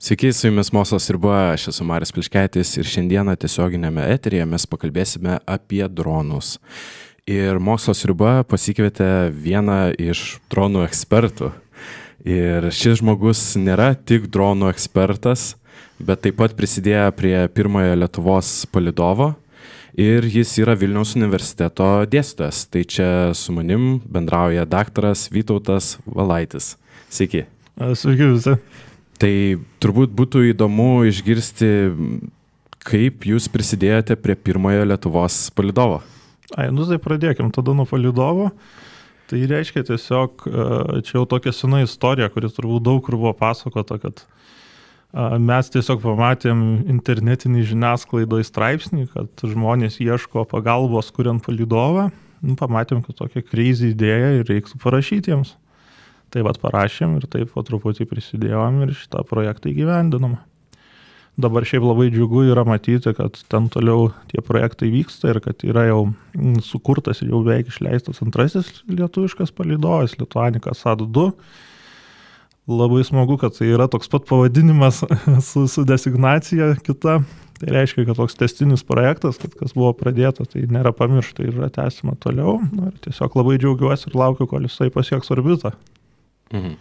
Sveiki, su jumis Mokslas riba, aš esu Marius Pliškaitis ir šiandieną tiesioginėme eteryje mes pakalbėsime apie dronus. Ir Mokslas riba pasikvietė vieną iš dronų ekspertų. Ir šis žmogus nėra tik dronų ekspertas, bet taip pat prisidėjo prie pirmojo Lietuvos palydovo ir jis yra Vilniaus universiteto dėstytojas. Tai čia su manim bendrauja daktaras Vytautas Valaitis. Sveiki. Sveiki visi. Tai turbūt būtų įdomu išgirsti, kaip jūs prisidėjote prie pirmojo Lietuvos palydovo. Tai pradėkim tada nuo palydovo. Tai reiškia tiesiog, čia jau tokia sena istorija, kuris turbūt daug kur buvo pasakota, kad mes tiesiog pamatėm internetinį žiniasklaidoje straipsnį, kad žmonės ieško pagalbos kuriant palydovą. Pamatėm, kad tokia crazy idėja ir reiktų parašyti jiems. Tai parašėm ir taip po truputį prisidėjom ir šitą projektą įgyvendinom. Dabar šiaip labai džiugu yra matyti, kad ten toliau tie projektai vyksta ir kad yra jau sukurtas ir jau beveik išleistas antrasis lietuviškas palydovas, Lituanica SAT-2. Labai smagu, kad tai yra toks pat pavadinimas su designacija kita. Tai reiškia, kad toks testinis projektas, kad kas buvo pradėta, tai nėra pamiršta ir yra tęsima toliau. Ir tiesiog labai džiaugiuosi ir laukiu, kol jisai pasieks orbitą. Mhm.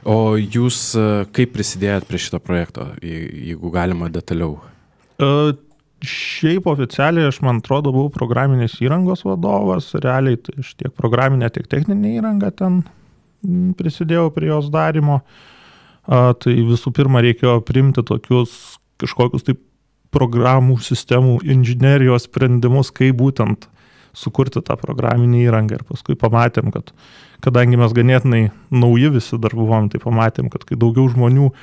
O jūs kaip prisidėjot prie šito projekto, jeigu galima detaliau? Šiaip oficialiai aš, man atrodo, buvau programinės įrangos vadovas, realiai tai aš tiek programinę, tiek techninę įrangą ten prisidėjau prie jos darimo. Tai visų pirma reikėjo priimti tokius kažkokius taip programų sistemų inžinerijos sprendimus, kaip būtent sukurti tą programinį įrangą ir paskui pamatėm, kad kadangi mes ganėtinai nauji visi dar buvom, tai pamatėm, kad kai daugiau žmonių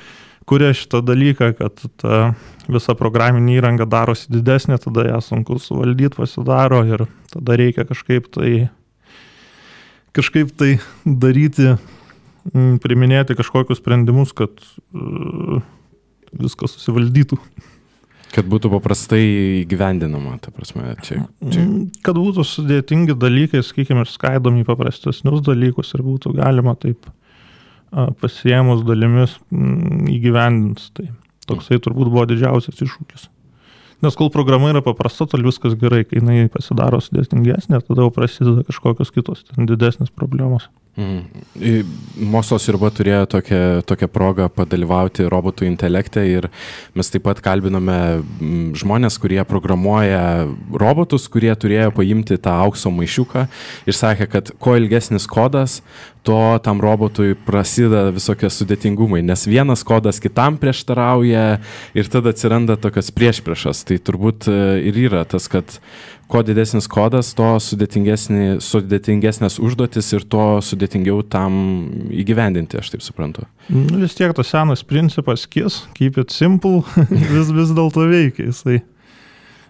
kuria šitą dalyką, kad ta visa programinė įranga darosi didesnė, tada ją sunku suvaldyti pasidaro ir tada reikia kažkaip tai daryti, priminėti kažkokius sprendimus, kad viskas susivaldytų. Kad būtų paprastai įgyvendinama, ta prasme, čia. Kad būtų sudėtingi dalykai, sakykime, ir skaidomi į paprastesnius dalykus ir būtų galima taip pasiėmus dalimis įgyvendinti. Tai toksai turbūt buvo didžiausias iššūkis. Nes kol programa yra paprasta, tol viskas gerai, kai jinai pasidaro sudėtingesnė, tada jau prasideda kažkokios kitos didesnės problemos. Mokslas riba turėjo tokią progą padalyvauti robotų intelekte ir mes taip pat kalbinome žmonės, kurie programuoja robotus, kurie turėjo paimti tą aukso maišiuką ir sakė, kad kuo ilgesnis kodas, to tam robotui prasideda visokie sudėtingumai, nes vienas kodas kitam prieštarauja ir tada atsiranda tokios priešpriešas. Tai turbūt ir yra tas, kad kuo didesnis kodas, to sudėtingesnės užduotis ir to sudėtingiau tam įgyvendinti, aš taip suprantu. Vis tiek tas senas principas keep it simple, vis dėlto veikia jisai.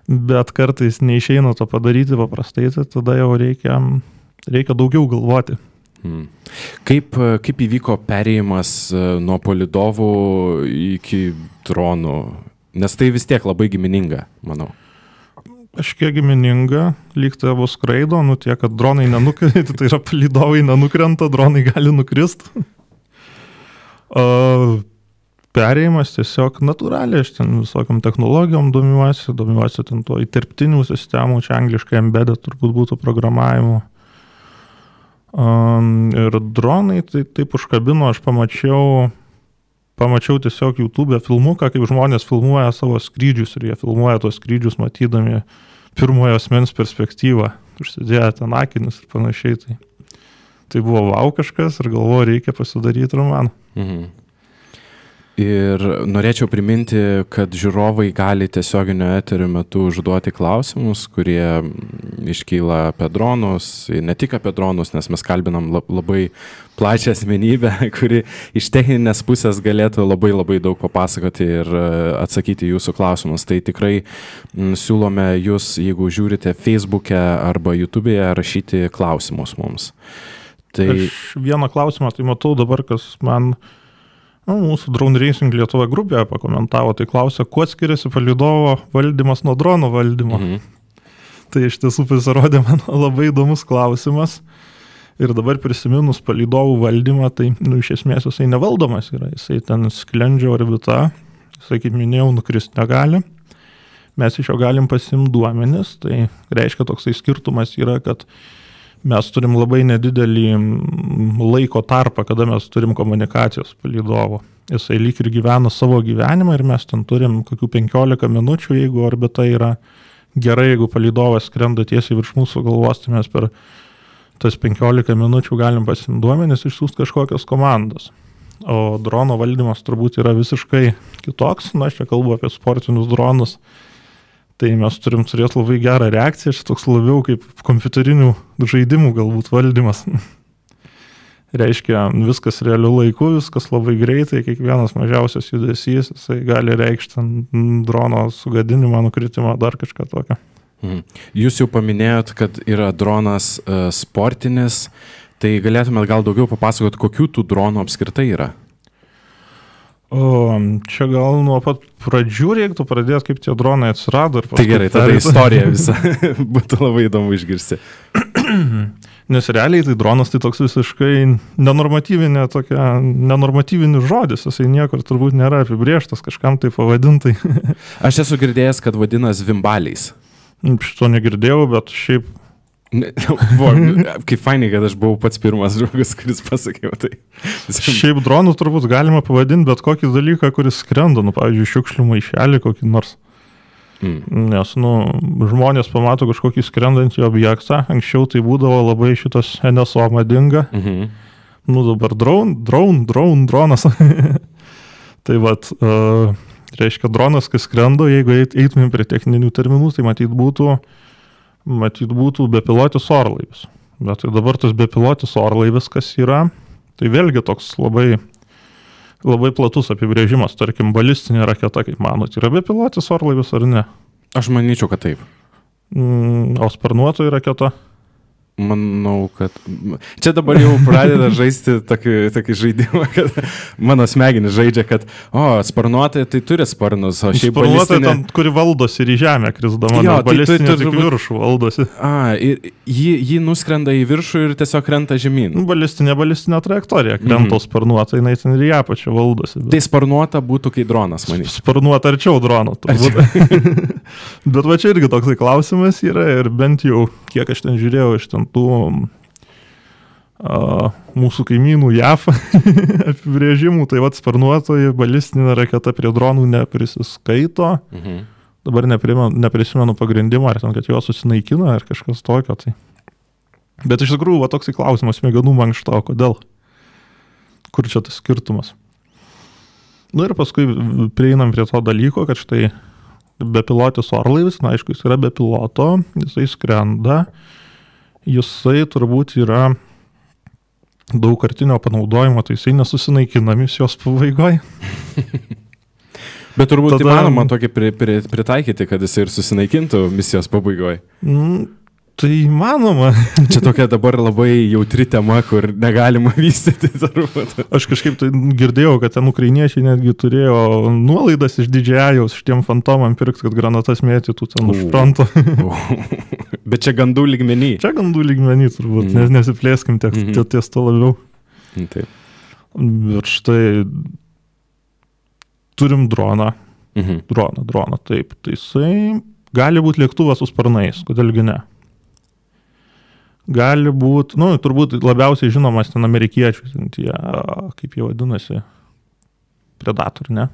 Bet kartais neišeina to padaryti paprastai, tai tada jau reikia daugiau galvoti. Kaip įvyko perėjimas nuo palydovų iki dronų? Nes tai vis tiek labai gimininga, manau. Kažkiek gimininga, lyg tai abu skraido, tiek, kad dronai nenukrenta, tai yra palydovai nenukrenta, dronai gali nukristi. Perėjimas tiesiog natūraliai, aš ten visokiam technologijom domiuosi ten to įterptinių sistemų, čia angliškai embedded turbūt būtų programavimu. Ir dronai tai taip užkabino, aš pamačiau tiesiog YouTube filmuką, kaip žmonės filmuoja savo skrydžius ir jie filmuoja tos skrydžius matydami pirmojo asmens perspektyvą, užsidėję ten akinius ir panašiai. Tai buvo vau kažkas ir galvoju, reikia pasidaryti romaną. Ir norėčiau priminti, kad žiūrovai gali tiesioginio eterio metu užduoti klausimus, kurie iškyla apie dronus, ne tik apie dronus, nes mes kalbinam labai plačią asmenybę, kuri iš techninės pusės galėtų labai daug papasakoti ir atsakyti jūsų klausimus. Tai tikrai siūlome jūs, jeigu žiūrite Facebook'e arba YouTube'e, rašyti klausimus mums. Aš vieną klausimą tai matau dabar, kas man mūsų Drone Racing Lietuva grupėje pakomentavo, tai klausia, kuo skiriasi palydovo valdymas nuo drono valdymo. Tai iš tiesų pasirodė man labai įdomus klausimas. Ir dabar prisiminus palydovų valdymą, tai iš esmės jisai nevaldomas yra, jisai ten sklendžia orbita, jisai, kaip minėjau, nukrist negali. Mes iš jo galim pasimti duomenis, tai reiškia toksai skirtumas yra, kad mes turim labai nedidelį laiko tarpą, kada mes turim komunikacijos palydovo. Jisai lyg ir gyvena savo gyvenimą ir mes ten turim kokių 15 minučių, jeigu orbita yra gerai, jeigu palydovas skrenda tiesiai virš mūsų galvos, tai mes per tas 15 minučių galim pasimti duomenis, išsiųsti kažkokios komandos. O drono valdymas turbūt yra visiškai kitoks, aš čia kalbu apie sportinius dronus. Tai mes turim turėti labai gerą reakciją, šis toks labiau kaip kompiuterinių žaidimų galbūt valdymas. Reiškia, viskas realiu laiku, viskas labai greitai, kiekvienas mažiausias judesys, jisai gali reikšti drono sugadinimą, nukritimą, dar kažką tokio. Jūs jau paminėjot, kad yra dronas sportinis, tai galėtumėt gal daugiau papasakot, kokių tų dronų apskritai yra? Čia gal nuo pat pradžių reiktų pradėti, kaip tie dronai atsirado. Tai gerai, tada istorija visa būtų labai įdomu išgirsti. Nes realiai tai dronas tai toks visiškai nenormatyvinis žodis, jisai niekur turbūt nėra apibrėžtas, kažkam tai pavadintai. Aš esu girdėjęs, kad vadina zvimbaliais. Šito negirdėjau, bet šiaip... Kaip fainai, kad aš buvau pats pirmas žmogus, kuris pasakė tai. Šiaip dronų turbūt galima pavadinti bet kokį dalyką, kuris skrenda, pavyzdžiui, šiukšlių maišelį kokį nors. Nes, žmonės pamato kažkokį skrendantį objektą, anksčiau tai būdavo labai šitas NSO madinga. Dabar dronas. Tai vat... reiškia, dronas, kai skrenda, jeigu eitumėm prie techninių terminų, tai matyt būtų bepilotis orlaivis. Bet tai dabar tas bepilotis orlaivis, kas yra, tai vėlgi toks labai, labai platus apibrėžimas. Tarkim, balistinė raketa, kaip manot, yra bepilotis orlaivis ar ne? Aš manyčiau, kad taip. O sparnuotoji raketa? Manau, kad... Čia dabar jau pradeda žaisti tokį žaidimą, kad mano smegenis žaidžia, kad sparnuotai tai turi sparnus, o šiaip balistinė... Sparnuotai tam, kuri valdosi ir į žemę krisdama, nes balistinė tik viršų valdosi. Ir jį nuskrenda į viršų ir tiesiog krenta žemyn. Balistinė trajektorija krenta, sparnuotai, jinai ten ir į apačią valdosi. Tai sparnuota būtų kai dronas, manyčiau. Sparnuota arčiau drono. Bet va čia irgi toksai klausimas yra ir bent jau, kiek aš ten žiūrėjau iš ten tų mūsų kaimynų JAV apibrėžimų, tai vat sparnuotoji balistinė raketa prie dronų neprisiskaito. Dabar neprisimenu pagrindimą, ar ten, kad jo susinaikina, ar kažkas tokio. Tai. Bet iš tikrųjų, va toksai klausimas, smegenų mankšta, kodėl? Kur čia tas skirtumas? Ir paskui prieinam prie to dalyko, kad štai bepilotis orlaivis, aišku, jis yra be piloto, jisai skrenda, jisai turbūt yra daugkartinio panaudojimo, tai jisai nesusinaikina misijos pabaigoje. Bet turbūt įmanoma tokį pritaikyti, kad jisai ir susinaikintų misijos pabaigoje. Tai įmanoma. Čia tokia dabar labai jautri tema, kur negalima vystyti turbūt. Aš kažkaip tai girdėjau, kad ten ukrainiečiai netgi turėjo nuolaidas iš DJI-aus šitiem fantomam pirkti, kad granatas mėtytų ten už fronto. Bet čia gandų lygmenį. Čia gandų lygmenį turbūt, nesiplėskim ties to labiau. Taip. Ir štai turim droną. Droną, taip. Tai jisai gali būti lėktuvas su sparnais, kodėlgi ne. Gali būti, turbūt labiausiai žinomas ten amerikiečių, tie, kaip jie vadinasi, Predator, ne?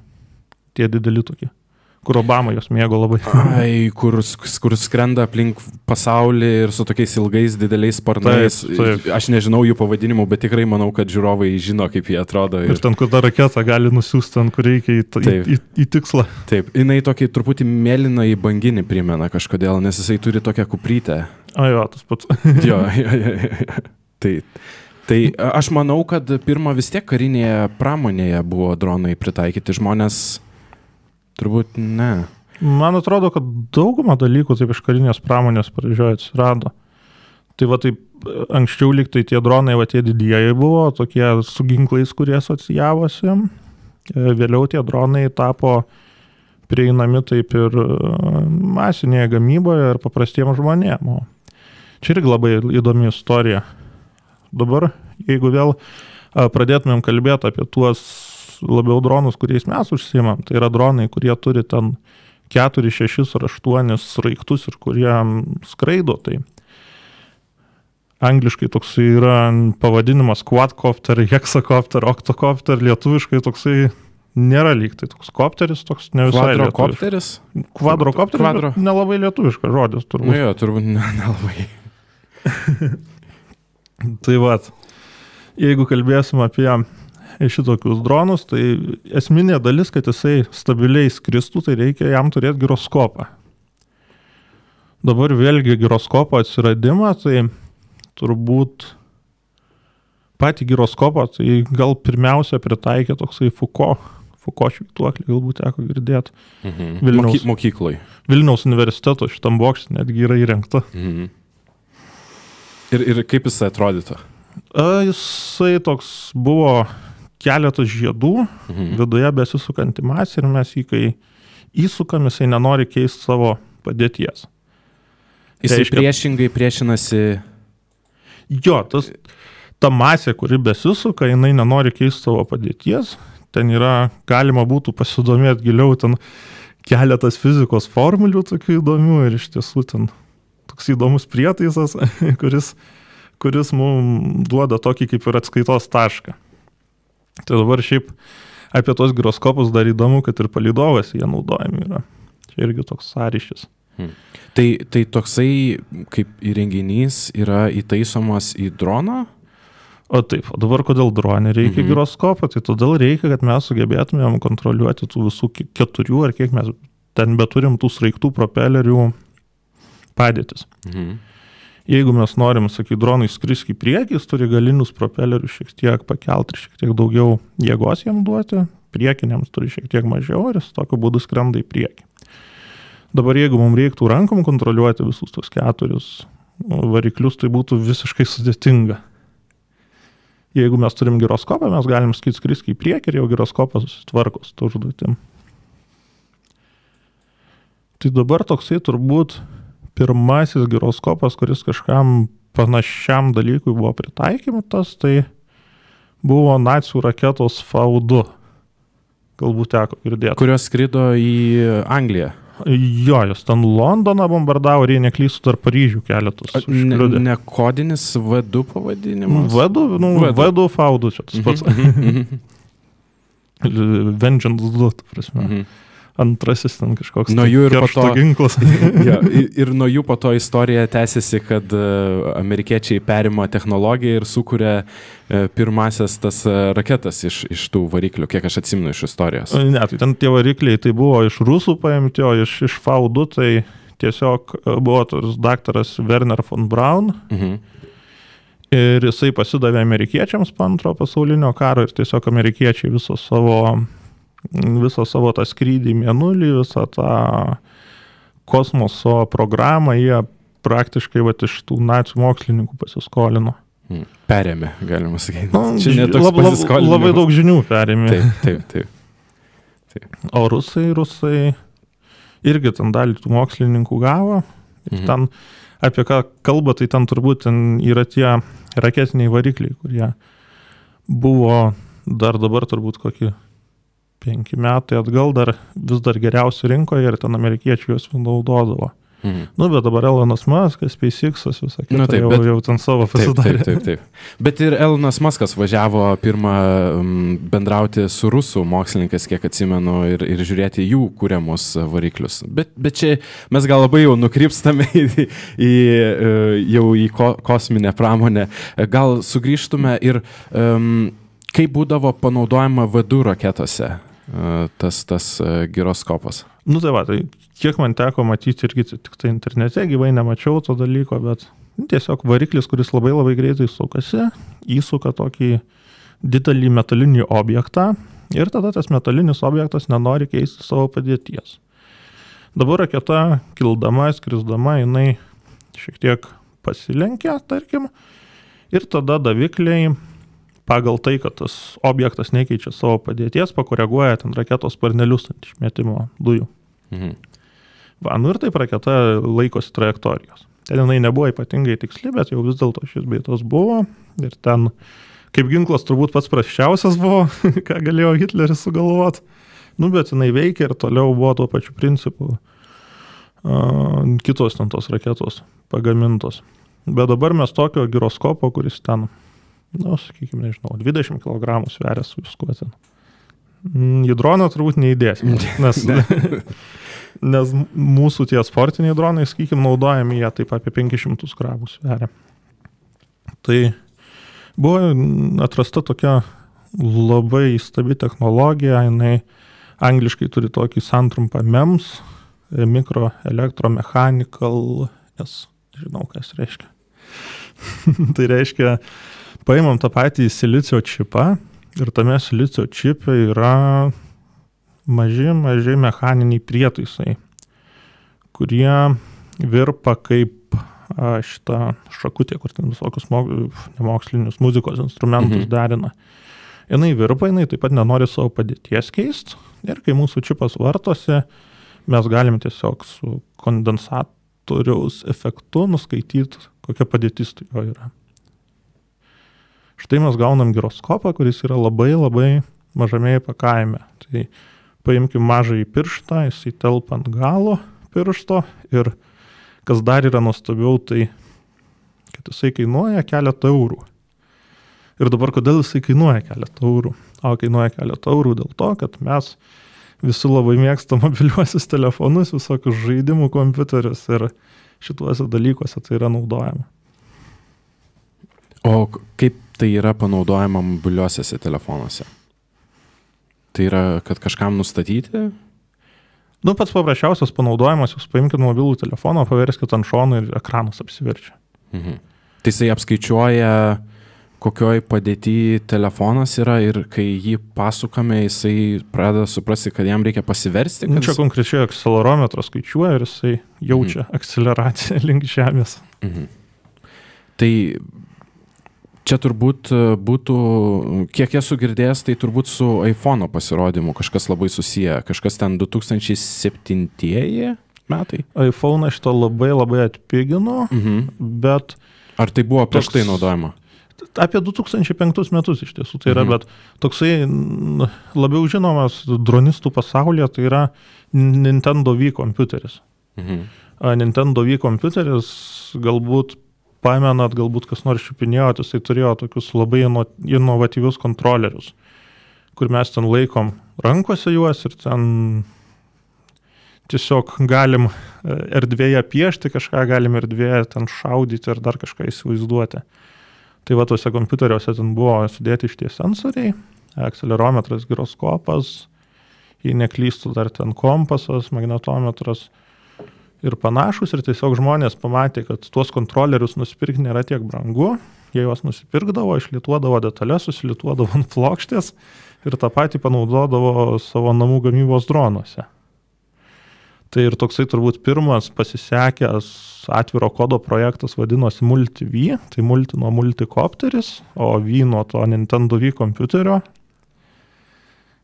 Tie dideli tokie, kur Obama jos mėgo labai. Kur skrenda aplink pasaulį ir su tokiais ilgais dideliais sparnais. Taip. Aš nežinau jų pavadinimų, bet tikrai manau, kad žiūrovai žino, kaip jie atrodo. Ir ten, kur ta raketa gali nusiųsti ten, kur reikia į tikslą. Taip, jinai tokį truputį mėlyną į banginį primena kažkodėl, nes jisai turi tokią kuprytę. Jo, tas pats. Jo. Tai aš manau, kad pirmą vis tiek karinėje pramonėje buvo dronai pritaikyti, žmonės turbūt ne. Man atrodo, kad daugumą dalykų taip iš karinės pramonės pradžioje atsirado. Tai va taip, anksčiau lyg tai tie dronai, va tie didieji buvo, tokie su ginklais, kurie asocijavosi. Vėliau tie dronai tapo prieinami taip ir masinėje gamyboje ir paprastiems žmonėms. Čia irgi labai įdomi istorija. dabar, jeigu vėl pradėtumėm kalbėti apie tuos labiau dronus, kuriais mes užsiimam, tai yra dronai, kurie turi ten 4, 6 ar 8 sraigtus ir kurie skraido, tai angliškai toksai yra pavadinimas quadcopter, hexacopter, octocopter, lietuviškai toksai nėra lyg, tai toks kopteris, toks ne visai Kvadrokopteris? Kvadrokopteris, nelabai lietuviškas žodis turbūt. Nu jo, turbūt nelabai. Tai vat, jeigu kalbėsim apie šitokius dronus, tai esminė dalis, kad jisai stabiliai skristų, tai reikia jam turėti giroskopą. Dabar vėlgi giroskopo atsiradimą, tai turbūt patį giroskopą, tai gal pirmiausia pritaikė toksai Foucault švytuoklį, galbūt teko girdėti. Mokykloj. Vilniaus universiteto šitam bokšte netgi yra įrengta. Ir kaip jisai atrodytų? Jisai toks buvo keletas žiedų, viduje besisukanti masė ir mes jį, kai įsukam, jisai nenori keisti savo padėties. Jisai priešingai priešinasi... Jo, ta masė, kuri besisuka, jinai nenori keisti savo padėties. Ten yra, galima būtų pasidomėti giliau, ten keletas fizikos formulių tokių įdomių ir iš tiesų ten toks įdomus prietaisas, kuris mums duoda tokį kaip ir atskaitos tašką. Tai dabar šiaip apie tos giroskopus dar įdomu, kad ir palydovas jie naudojami yra. Čia irgi toks sąryšis. Tai toksai kaip įrenginys yra įtaisomas į droną? O taip, o dabar kodėl dronė reikia giroskopo? Tai todėl reikia, kad mes sugebėtumėm kontroliuoti tų visų 4 ar kiek mes ten beturim tų sraigtų propelerių padėtis. Jeigu mes norim, sakai, dronui skristi į priekį, jis turi galinius propelerius šiek tiek pakelti ir šiek tiek daugiau jėgos jam duoti, priekiniams turi šiek tiek mažiau ir jis tokiu būdu skrenda į priekį. Dabar jeigu mums reiktų rankom kontroliuoti visus tos 4 variklius, tai būtų visiškai sudėtinga. Jeigu mes turim giroskopą, mes galim skristi į priekį ir jau giroskopas susitvarko su užduotim. Tai dabar toksai turbūt pirmasis giroskopas, kuris kažkam panašiam dalykui buvo pritaikymas, tai buvo nacių raketos V2. Galbūt teko girdėti. Kurios skrido į Angliją. Jo, jos ten Londoną bombardavo ir jie neklystų dar Paryžių keletus. Ne kodinis V2 pavadinimas? V2 V2, čia tas pats. Vengeance 2, prasme. Antrasis ten kažkoks keršto ginklas. Ja, ir nuo jų po to istorija tęsiasi, kad amerikiečiai perima technologiją ir sukuria pirmasias tas raketas iš tų variklių, kiek aš atsimenu iš istorijos. Ne, tai ten tie varikliai tai buvo iš rusų paimti, o iš V2 tai tiesiog buvo tas daktaras Werner von Braun. Ir jisai pasidavė amerikiečiams po Antrojo pasaulinio karo ir tiesiog amerikiečiai visą savo tą skrydį į Mėnulį, visą tą kosmoso programą jie praktiškai iš tų nacių mokslininkų pasiskolino. Perėmė, galima sakyti. Čia netoks pasiskolinimas. Labai daug žinių perėmė. Taip. O rusai irgi ten dalį tų mokslininkų gavo. Ir ten apie ką kalba, tai ten turbūt yra tie raketiniai varikliai, kurie buvo dabar turbūt kokį 5 metai atgal vis dar geriausi rinkoje ir ten amerikiečiai juos naudodavo. Bet dabar Elonas Muskas, SpaceX'as, visą kitą jau ten savo pasidarė. Taip. Bet ir Elonas Muskas važiavo pirmą bendrauti su rusų mokslininkais, kiek atsimenu, ir žiūrėti jų kūriamus variklius. Bet čia mes gal labai jau nukrypstame jau į kosminę pramonę. Gal sugrįžtume ir kaip būdavo panaudojama V2 raketose tas giroskopas? Tai kiek man teko matyti irgi tik tai internete, gyvai nemačiau to dalyko, bet tiesiog variklis, kuris labai labai greitai sukasi, įsuka tokį didelį metalinį objektą ir tada tas metalinis objektas nenori keisti savo padėties. Dabar raketa kildama, skrisdama, jinai šiek tiek pasilenkia, tarkim, ir tada davikliai pagal tai, kad tas objektas nekeičia savo padėties, pakoreguoja ten raketos sparnelius ant išmetimo dujų. Ir taip raketa laikosi trajektorijos. Ten jinai nebuvo ypatingai tiksli, bet jau vis dėlto šis bei tos buvo. Ir ten, kaip ginklas, turbūt pats prasčiausias buvo, ką galėjo Hitleris sugalvoti. Nu, bet jinai veikia ir toliau buvo tuo pačiu principu kitos ten tos raketos pagamintos. Bet dabar mes tokio giroskopo, kuris ten, sakykime, nežinau, 20 kg sveria su viskuo ten. Į droną turbūt neįdėsim, nes mūsų tie sportiniai dronai, sakykime, naudojami jie taip apie 500 gramų sveria. Tai buvo atrasta tokia labai įstabi technologija, jinai angliškai turi tokį santrumpą MEMS, Microelectromechanical, žinau, kas reiškia. Tai reiškia, paimam tą patį silicio čipą ir tame silicio čipe yra maži mechaniniai prietaisai, kurie virpa kaip šitą šakutę, kur ten visokius nemokslinius muzikos instrumentus derina. Jinai virpa, jinai taip pat nenori savo padėties keisti ir kai mūsų čipas vartosi, mes galim tiesiog su kondensatoriaus efektu nuskaityti, kokia padėtis tai jo yra. Štai mes gaunam giroskopą, kuris yra labai mažame įpakavime. Tai paimkim mažąjį pirštą, jisai telpa ant galo piršto ir kas dar yra nuostabiau, tai kad jisai kainuoja keletą eurų. Ir dabar kodėl jisai kainuoja keletą eurų? O kainuoja keletą eurų dėl to, kad mes visi labai mėgsta mobiliuosius telefonus, visokius žaidimų kompiuterius ir šituose dalykuose tai yra naudojama. O kaip tai yra panaudojama mobiliuosiuose telefonuose? Tai yra, kad kažkam nustatyti? Pats paprasčiausias panaudojimas, jūs paimkite mobilų telefoną, paverskite ant šono ir ekranas apsiverčia. Tai jisai apskaičiuoja, kokioj padėty telefonas yra ir kai jį pasukame, jisai pradeda suprasti, kad jam reikia pasiversti. Čia konkrečiai akcelerometras skaičiuoja ir jisai jaučia akceleraciją link žemės. Tai čia turbūt būtų, kiek esu girdėjęs, tai turbūt su iPhone'o pasirodymu kažkas labai susiję, kažkas ten 2007 metai. iPhone šitą labai atpigino, bet... Ar tai buvo prieš tai naudojama? Apie 2005 metus iš tiesų tai yra, bet toksai labiau žinomas dronistų pasaulyje, tai yra Nintendo Wii kompiuteris. Nintendo Wii kompiuteris, galbūt pamenat, galbūt kas nors čiupinėjot, jisai turėjo tokius labai inovatyvius kontrolerius, kur mes ten laikom rankose juos ir ten tiesiog galim erdvėje piešti kažką, galim erdvėje ten šaudyti ir dar kažką įsivaizduoti. Tai va, tuose kompiuteriuose ten buvo sudėti šitie sensoriai, akcelerometras, giroskopas, jei neklystų dar ten kompasas, magnetometras ir panašus. Ir tiesiog žmonės pamatė, kad tuos kontrolerius nusipirkti nėra tiek brangu. Jie juos nusipirkdavo, išlituodavo detalės, susilituodavo ant plokštės ir tą patį panaudodavo savo namų gamybos dronuose. Tai ir toksai turbūt pirmas pasisekęs atviro kodo projektas vadinosi Multi-V, tai multi nuo multikopteris, o V nuo to Nintendo Wii kompiuterio.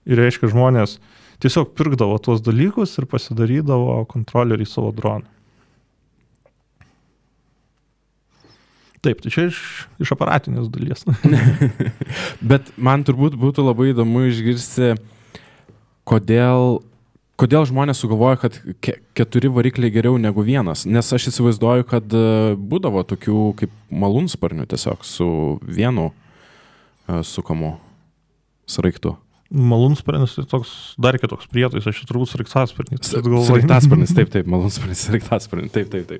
Ir reiškia, žmonės tiesiog pirkdavo tuos dalykus ir pasidarydavo kontrolerį savo droną. Taip, tai čia iš aparatinės dalies. Bet man turbūt būtų labai įdomu išgirsti, kodėl žmonės sugalvoja, kad 4 varikliai geriau negu vienas? Nes aš įsivaizduoju, kad būdavo tokių kaip malūnsparnių tiesiog su vienu sukamu sraigtu. Malūnsparnis tai toks dar kitoks prietaisas, aš turbūt sraigtasparnis. Sraigtasparnis, taip, malūnsparnis, sraigtasparnis, taip.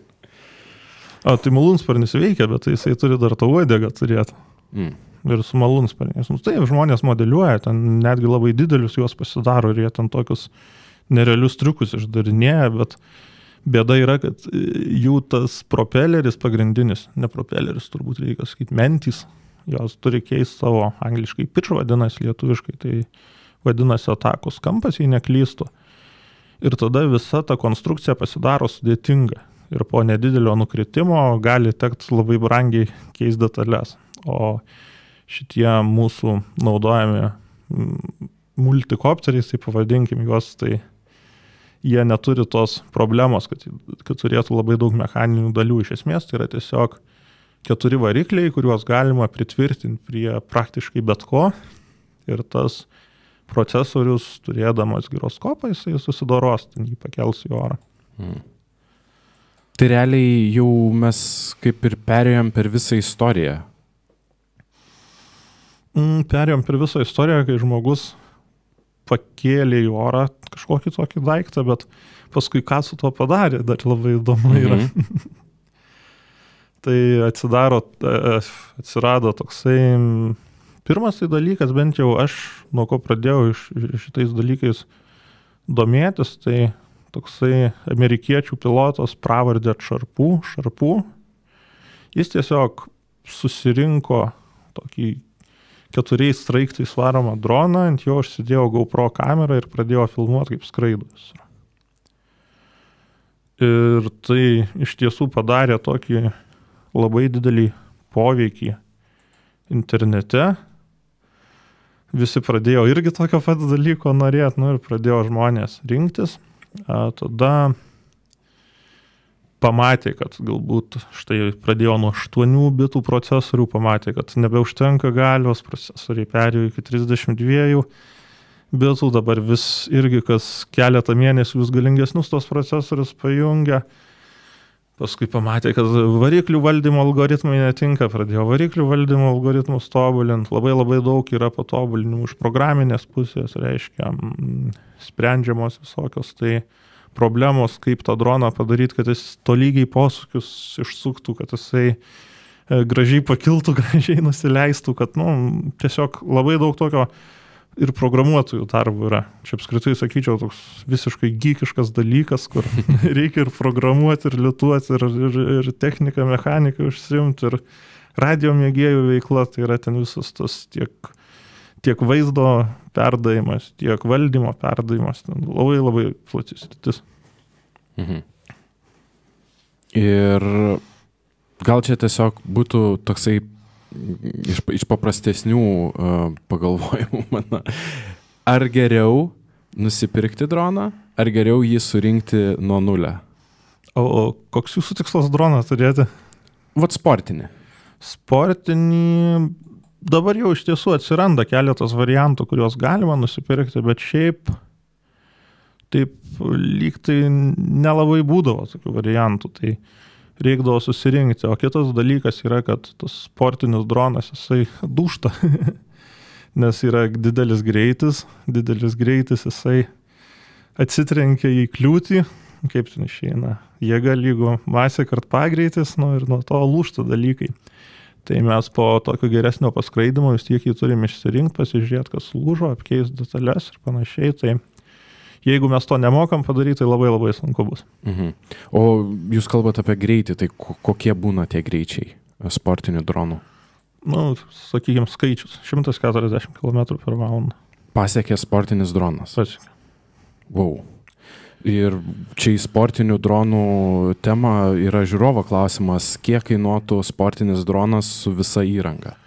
Tai malūnsparnis veikia, bet jisai turi dar tą uodegą turėti. Ir su malūnsparniais. Taip, žmonės modeliuoja, ten netgi labai didelius juos pasidaro ir jie ten tokius nerealius triukus išdarinėja, bet bėda yra, kad jų tas propeleris pagrindinis, ne propeleris, turbūt reikia sakyti, mentys, jos turi keisti savo angliškai pitch vadinasi, lietuviškai, tai vadinasi atakos kampas, jei neklystų. Ir tada visa ta konstrukcija pasidaro sudėtinga. Ir po nedidelio nukritimo gali tekti labai brangiai keisti detalės. O šitie mūsų naudojami multikopteriais, tai pavadinkim juos, tai jie neturi tos problemos, kad turėtų labai daug mechaninių dalių. Iš esmės tai yra tiesiog 4 varikliai, kuriuos galima pritvirtinti prie praktiškai bet ko. Ir tas procesorius, turėdamas giroskopą, jisai susidoros, ten jį pakels į orą. Tai realiai jau mes kaip ir perėjom per visą istoriją. Perėjom per visą istoriją, kai žmogus pakėlė į orą kažkokį tokį daiktą, bet paskui ką su tuo padarė, dar labai įdomu yra. Tai atsirado toksai, pirmas tai dalykas, bent jau aš nuo ko pradėjau šitais dalykais domėtis, tai toksai amerikiečių pilotas pravardė Šarpų. Jis tiesiog susirinko tokį 4 straiktais varomą droną, ant jo užsidėjo GoPro kamerą ir pradėjo filmuoti, kaip skraidos. Ir tai iš tiesų padarė tokį labai didelį poveikį internete. Visi pradėjo irgi tokio pat dalyko norėti, ir pradėjo žmonės rinktis. Tada pamatė, kad galbūt štai pradėjo nuo 8 bitų procesorių, pamatė, kad nebeužtenka galios, procesoriai perėjo iki 32 bitų, dabar vis irgi kas keletą mėnesių vis galingesnius tos procesorius pajungia. Paskui pamatė, kad variklių valdymo algoritmai netinka, pradėjo variklių valdymo algoritmus tobulinti, labai daug yra patobulinimų iš programinės pusės, reiškia, sprendžiamos visokios tai problemos, kaip tą droną padaryti, kad jis tolygiai posūkius išsuktų, kad jisai gražiai pakiltų, gražiai nusileistų, kad tiesiog labai daug tokio ir programuotojų darbų yra. Čia apskritai sakyčiau toks visiškai geekiškas dalykas, kur reikia ir programuoti, ir lituoti, ir techniką, mechaniką užsiimti, ir radio mėgėjų veikla, tai yra ten visas tas tiek vaizdo perdavimas, tiek valdymo perdavimas, ten labai platis sritis. Ir gal čia tiesiog būtų toksai iš paprastesnių pagalvojimų mano. Ar geriau nusipirkti droną, ar geriau jį surinkti nuo nulio? O koks jūsų tikslas droną turėti? Vat sportinį. Sportinį dabar jau iš tiesų atsiranda keletas variantų, kuriuos galima nusipirkti, bet šiaip taip lyg tai nelabai būdavo tokių variantų, tai reikdavo susirinkti. O kitas dalykas yra, kad tas sportinis dronas, jisai dūžta, nes yra didelis greitis, jisai atsitrenkia į kliūtį, kaip ten išeina, jėga lygu masė kart pagreitis, ir nuo to lūžta dalykai. Tai mes po tokio geresnio paskraidimo vis tiek jį turim išsirinkti, pasižiūrėti, kas lūžo, apkeisti detalės ir panašiai. Tai jeigu mes to nemokam padaryti, tai labai sunku bus. O jūs kalbate apie greitį, tai kokie būna tie greičiai sportinių dronų? Sakykime, skaičius. 140 km/h. Pasiekė sportinis dronas? Pasiekė. Wow. Ir čia į sportinių dronų temą yra žiūrovo klausimas, kiek kainuotų sportinis dronas su visa įranga?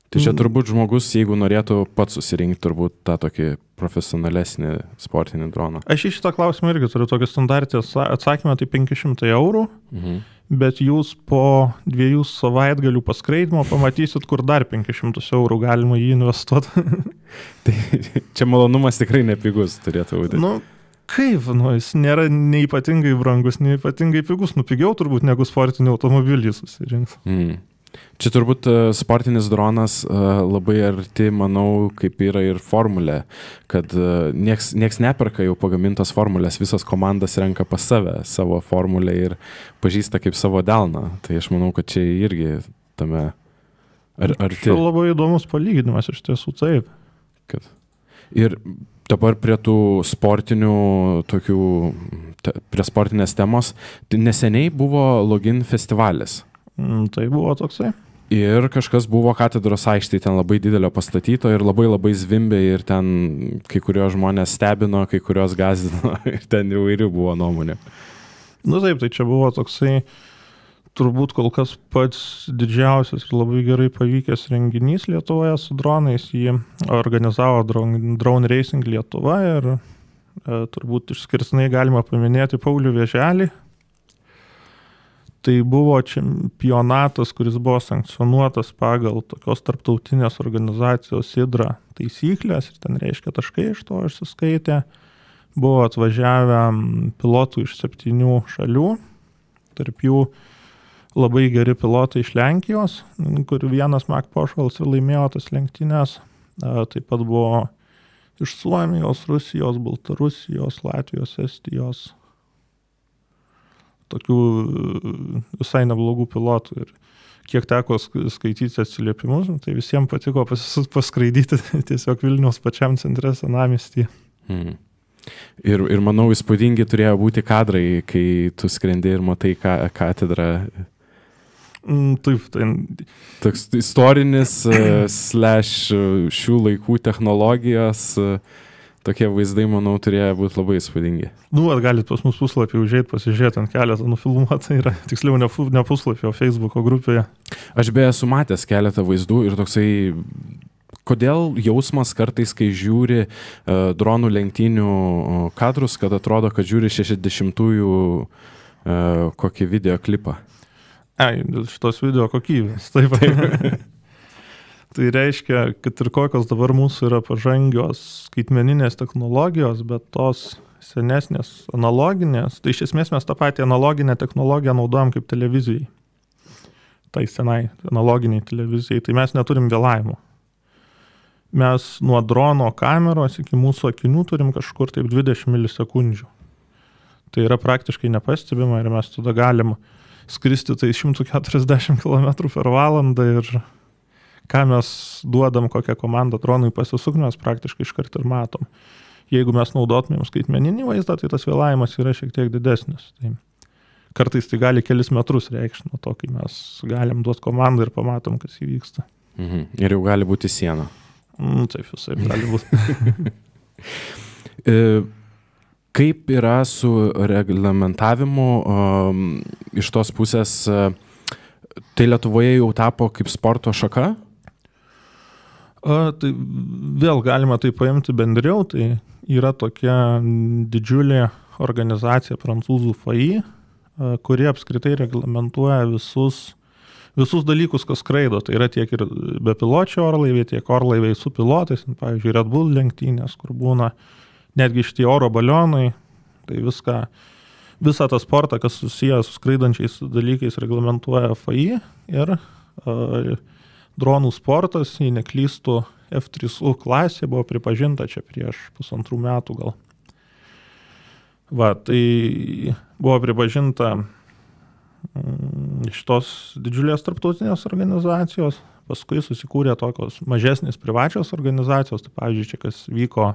Tai čia turbūt žmogus, jeigu norėtų pats susirinkti turbūt tą tokį profesionalesnį sportinį droną. Aš į šitą klausimą irgi turiu tokį standartį atsakymą, tai 500 eurų, bet jūs po 2 savaitgalių paskraidimo pamatysit, kur dar 500 eurų galima jį investuoti. Tai čia malonumas tikrai nepigus turėtų būti. Kaip, jis nėra nei ypatingai brangus, nei ypatingai pigus, pigiau turbūt negu sportinį automobilį susirinks. Čia turbūt sportinis dronas labai arti, manau, kaip yra ir formulė, kad nieks neperka jau pagamintos formulės, visas komandas renka pas savo formulę ir pažįsta kaip savo delną. Tai aš manau, kad čia irgi tame arti. Čia labai įdomus palyginimas, iš tiesų taip. Ir dabar prie tų sportinių tokių, prie sportinės temos, tai neseniai buvo Login festivalis. Tai buvo toksai. Ir kažkas buvo katedros aikštėje ten labai didelio pastatyto ir labai zvimbė ir ten kai kurios žmonės stebino, kai kurios gąsdino ir ten įvairių buvo nuomonė. Taip, tai čia buvo toksai turbūt kol kas pats didžiausias ir labai gerai pavykęs renginys Lietuvoje su dronais. Jį organizavo Drone Racing Lietuva ir turbūt išskirtinai galima paminėti Paulių Vėželį. Tai buvo čempionatas, kuris buvo sankcionuotas pagal tokios tarptautinės organizacijos IDRA taisyklės ir ten reiškia taškai iš to išsiskaitė. Buvo atvažiavę pilotų iš 7 šalių, tarp jų labai geri pilotai iš Lenkijos, kur vienas Mac Pošvalas ir laimėjo tas lenktynės. Taip pat buvo iš Suomijos, Rusijos, Baltarusijos, Latvijos, Estijos, tokių visai neblogų pilotų. Ir kiek teko skaityti atsiliepimus, tai visiems patiko paskraidyti tiesiog Vilniaus pačiam centre senamiestyje. Ir manau, įspūdingi turėjo būti kadrai, kai tu skrendi ir matai katedrą. Taip, tai... Toks istorinis / šių laikų technologijos, tokie vaizdai, manau, turėjo būti labai įspūdingi. Galit pas mus puslapį užėjti, pasižiūrėti, ant keletą nufilmuota yra, tiksliau ne puslapį, o Facebooko grupėje. Aš beje esu matęs keletą vaizdų ir toksai, kodėl jausmas kartais, kai žiūri dronų lenktynių kadrus, kad atrodo, kad žiūri 60-ųjų kokį videoklipą. Šitos video kokybės, taip. Tai reiškia, kad ir kokios dabar mūsų yra pažangios skaitmeninės technologijos, bet tos senesnės analoginės, tai iš esmės mes tą patį analoginę technologiją naudojam kaip televizijai. Tai senai analoginiai televizijai, tai mes neturim vėlavimo. Mes nuo drono kameros iki mūsų akinių turim kažkur taip 20 milisekundžių. Tai yra praktiškai nepastebima ir mes tada galim skristi tai 140 km per valandą ir ką mes duodam, kokią komandą dronui pasisukti, mes praktiškai iškart ir matom. Jeigu mes naudotumėm skaitmeninį vaizdą, tai tas vėlavimas yra šiek tiek didesnis. Tai kartais tai gali kelis metrus reikšti nuo to, kai mes galim duoti komandą ir pamatom, kas įvyksta. Ir jau gali būti siena. Taip, visai gali būti. Kaip yra su reglamentavimu iš tos pusės, tai Lietuvoje jau tapo kaip sporto šaka? Tai vėl galima tai paimti bendriau, tai yra tokia didžiulė organizacija prancūzų FAI, kuri apskritai reglamentuoja visus dalykus, kas skraido. Tai yra tiek ir bepiločiai orlaiviai, tiek orlaiviai su pilotais, pavyzdžiui, Red Bull lenktynės, kur būna netgi šitie oro balionai, tai visą tą sportą, kas susijęs su skraidančiais dalykais, reglamentuoja FAI ir dronų sportas, jei neklystų, F3U klasė buvo pripažinta čia prieš 1,5 metų gal. Tai buvo pripažinta iš tos didžiulės tarptautinės organizacijos, paskui susikūrė tokios mažesnės privačios organizacijos, tai pavyzdžiui, čia kas vyko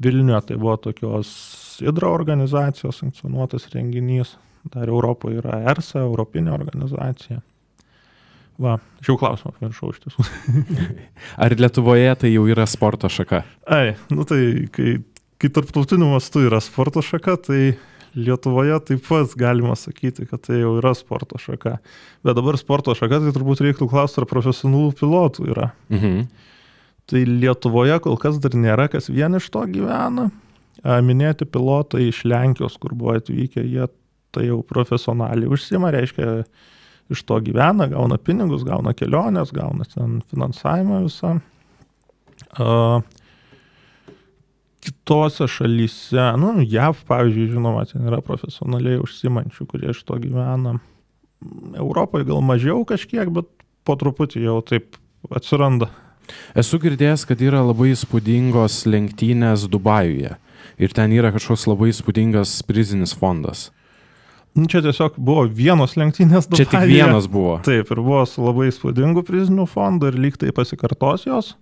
Vilniuje, tai buvo tokios IDRA organizacijos sankcionuotas renginys, dar Europoje yra ERSA, Europinė organizacija. Šiau klausimą pamiršau iš tiesų. Ar Lietuvoje tai jau yra sporto šaka? Tai kai tarptautiniu mastu yra sporto šaka, tai Lietuvoje taip pat galima sakyti, kad tai jau yra sporto šaka. Bet dabar sporto šaka, tai turbūt reiktų klausti, ar profesionalų pilotų yra. Tai Lietuvoje kol kas dar nėra, kas vien iš to gyvena. Minėti pilotai iš Lenkijos, kur buvo atvykę, jie tai jau profesionaliai užsiima, reiškia, iš to gyvena, gauna pinigus, gauna kelionės, gauna ten finansavimą visą. Kitose šalyse, JAV, pavyzdžiui, žinoma, ten yra profesionaliai užsiimančių, kurie iš to gyvena. Europoje gal mažiau kažkiek, bet po truputį jau taip atsiranda. Esu girdėjęs, kad yra labai įspūdingos lenktynės Dubajuje ir ten yra kažkoks labai įspūdingas prizinis fondas. Čia tiesiog buvo vienos lenktynės Dubajuje. Čia tik vienos buvo. Taip, ir buvo su labai įspūdingu priziniu fondu ir lyg tai pasikartos jos.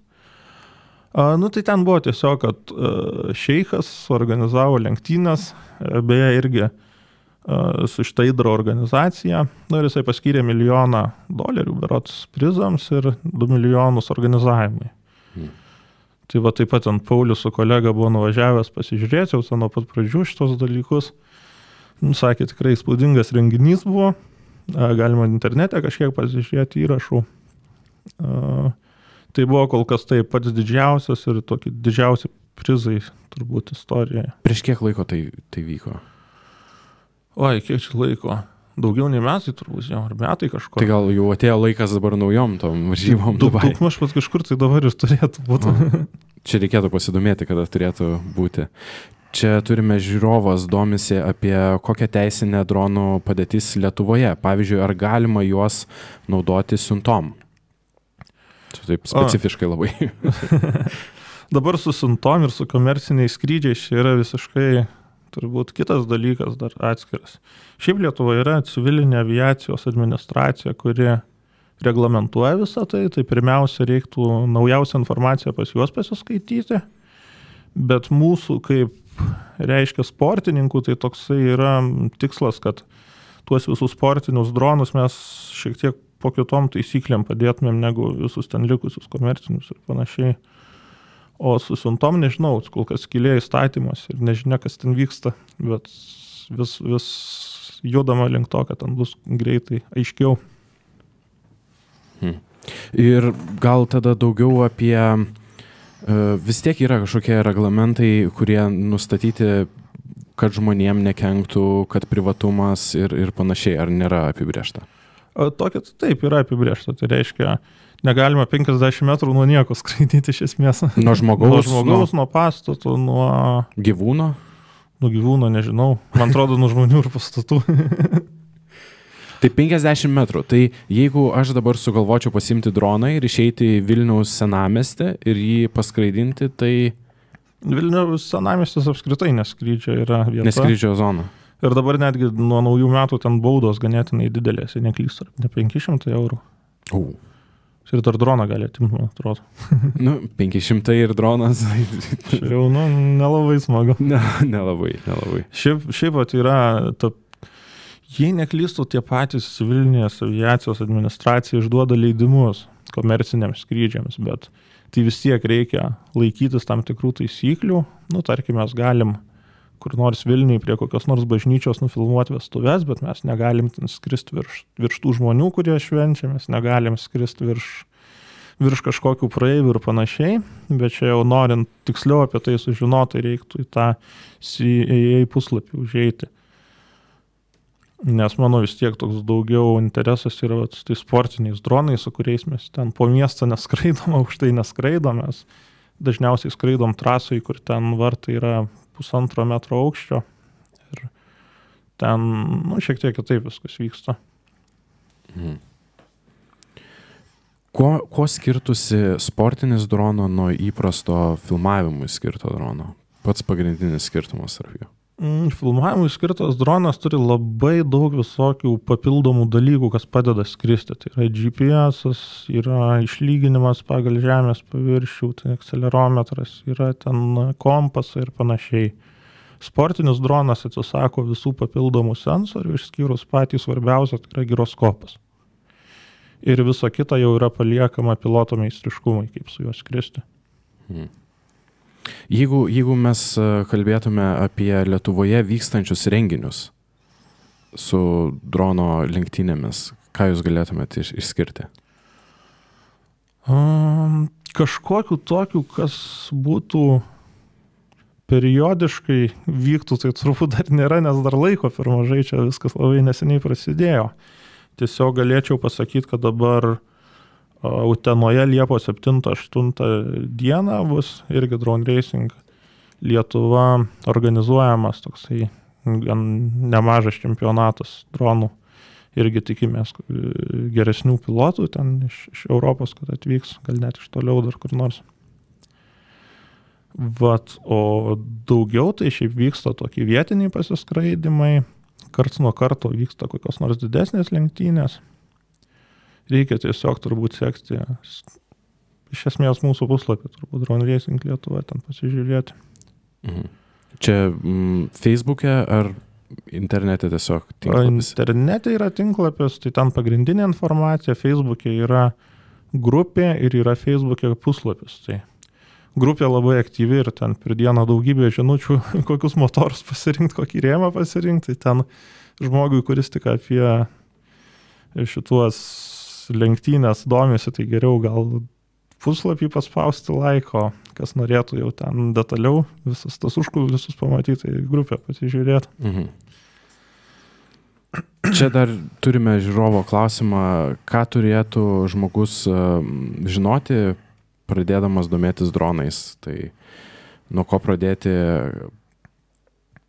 Tai ten buvo tiesiog, kad šeichas organizavo lenktynės, beje irgi su šitą IDRA organizacija, ir jisai paskyrė $1 milijoną berods prizams ir 2 milijonus organizavimui. Tai taip pat ant Paulius su kolega buvo nuvažiavęs pasižiūrėti, jau nuo pat pradžių šitos dalykus. Sakė, tikrai įspūdingas renginys buvo, galima internete kažkiek pasižiūrėti įrašų. Tai buvo kol kas tai pats didžiausias ir tokie didžiausi prizai turbūt istorijoje. Prieš kiek laiko tai vyko? Kiek čia laiko? Daugiau nei metai turbūt, jau ar metai kažko. Tai gal jau atėjo laikas dabar naujom tom varžybom Dubai. Daug maž pat kažkur tai dabar ir turėtų būti. Čia reikėtų pasidomėti, kada turėtų būti. Čia turime žiūrovas domisi apie kokią teisinę dronų padėtis Lietuvoje. Pavyzdžiui, ar galima juos naudoti siuntom? Čia taip specifiškai labai. Dabar su siuntom ir su komerciniais skrydžiais čia yra visiškai turbūt kitas dalykas dar atskiras. Šiaip Lietuvoje yra civilinė aviacijos administracija, kuri reglamentuoja visą tai. Tai pirmiausia reiktų naujausią informaciją pas juos pasiskaityti. Bet mūsų kaip reiškia sportininkų, tai toksai yra tikslas, kad tuos visus sportinius dronus mes šiek tiek po kitom taisyklėm padėtumėm negu visus ten likusius komercinius ir panašiai. O su siuntom nežinau, kol kas skylė įstatymas ir nežinia, kas ten vyksta, bet vis judama link to, kad ten bus greitai aiškiau. Ir gal tada daugiau apie, vis tiek yra kažkokie reglamentai, kurie nustatyti, kad žmonėm nekenktų, kad privatumas ir panašiai, ar nėra apibrėžta? Tokia taip yra apibrėžta, tai reiškia, negalima 50 metrų nuo nieko skraidyti iš esmės. Nuo žmogaus, nuo pastatų, nuo gyvūno? Nuo gyvūno, nežinau. Man atrodo, nuo žmonių ir pastatų. Tai 50 metrų. Tai jeigu aš dabar sugalvočiau pasimti droną ir išeiti į Vilniaus senamiestį ir jį paskraidinti, tai... Vilniaus senamiestis apskritai neskrydžio yra vieta. Neskrydžio zona. Ir dabar netgi nuo naujų metų ten baudos ganėtinai didelės, jei neklystu, ne 500 eurų. Ir dar droną gali atimti, man atrodo. 500 ir dronas. Jau, nelabai smagu. Nelabai. Šiaip yra, jei neklystu, tie patys civilinės aviacijos administracija išduoda leidimus komerciniams skrydžiams, bet tai vis tiek reikia laikytis tam tikrų taisyklių. Tarkim, mes galim kur nors Vilniui prie kokios nors bažnyčios nufilmuoti vestuves, bet mes negalim skristi virš tų žmonių, kurie švenčia, mes negalim skristi virš kažkokių praeivių ir panašiai, bet čia jau norint tiksliau apie tai sužinoti, reiktų į tą CAA puslapį užeiti. Nes mano vis tiek toks daugiau interesas yra tai sportiniais dronais, su kuriais mes ten po miestą neskraidom, aukštai neskraidom, mes dažniausiai skraidom trasai, kur ten vartai yra 1,5 metro aukščio ir ten, šiek tiek kitaip viskas vyksta. Kuo skirtusi sportinis drono nuo įprasto filmavimui skirto drono? Pats pagrindinis skirtumas tarp jų? Filmavimui skirtas dronas turi labai daug visokių papildomų dalykų, kas padeda skristi. Tai yra GPS, yra išlyginimas pagal žemės paviršių, tai akcelerometras, yra ten kompasai ir panašiai. Sportinis dronas atsisako visų papildomų sensorių, išskyrus patį svarbiausią, tai yra giroskopas. Ir visa kita jau yra paliekama piloto meistriškumai, kaip su juo skristi. Jeigu mes kalbėtume apie Lietuvoje vykstančius renginius su drono lenktynėmis, ką jūs galėtumėte išskirti? Kažkokiu tokiu, kas būtų periodiškai vyktų, tai turbūt dar nėra, nes dar laiko per mažai, čia viskas labai neseniai prasidėjo. Tiesiog galėčiau pasakyti, kad dabar Utenoje Liepos 7-8 dieną bus irgi Drone Racing Lietuva organizuojamas toksai gan nemažas čempionatas dronų. Irgi tikimės geresnių pilotų ten iš Europos, kad atvyks, gal net iš toliau dar kur nors. O daugiau tai šiaip vyksta tokie vietiniai pasiskraidimai, karts nuo karto vyksta kokios nors didesnės lenktynės. Reikia tiesiog turbūt sekti iš esmės mūsų puslapį, turbūt Drone Racing Lietuva, ten pasižiūrėti. Čia Facebook'e ar internete tiesiog tinklapis? Internete yra tinklapis, tai ten pagrindinė informacija, Facebook'e yra grupė ir yra Facebook'e puslapis. Tai grupė labai aktyvi ir ten per dieną daugybė žinučių, kokius motorus pasirinkti, kokį rėmą pasirinkti. Tai ten žmogui, kuris tik apie šituos lenktynės domisi, tai geriau gal puslapį paspausti laiko, kas norėtų jau ten detaliau visas tas užkulisius pamatyti, tai grupę pasižiūrėti. Čia dar turime žiūrovo klausimą, ką turėtų žmogus žinoti, pradėdamas domėtis dronais. Tai nuo ko pradėti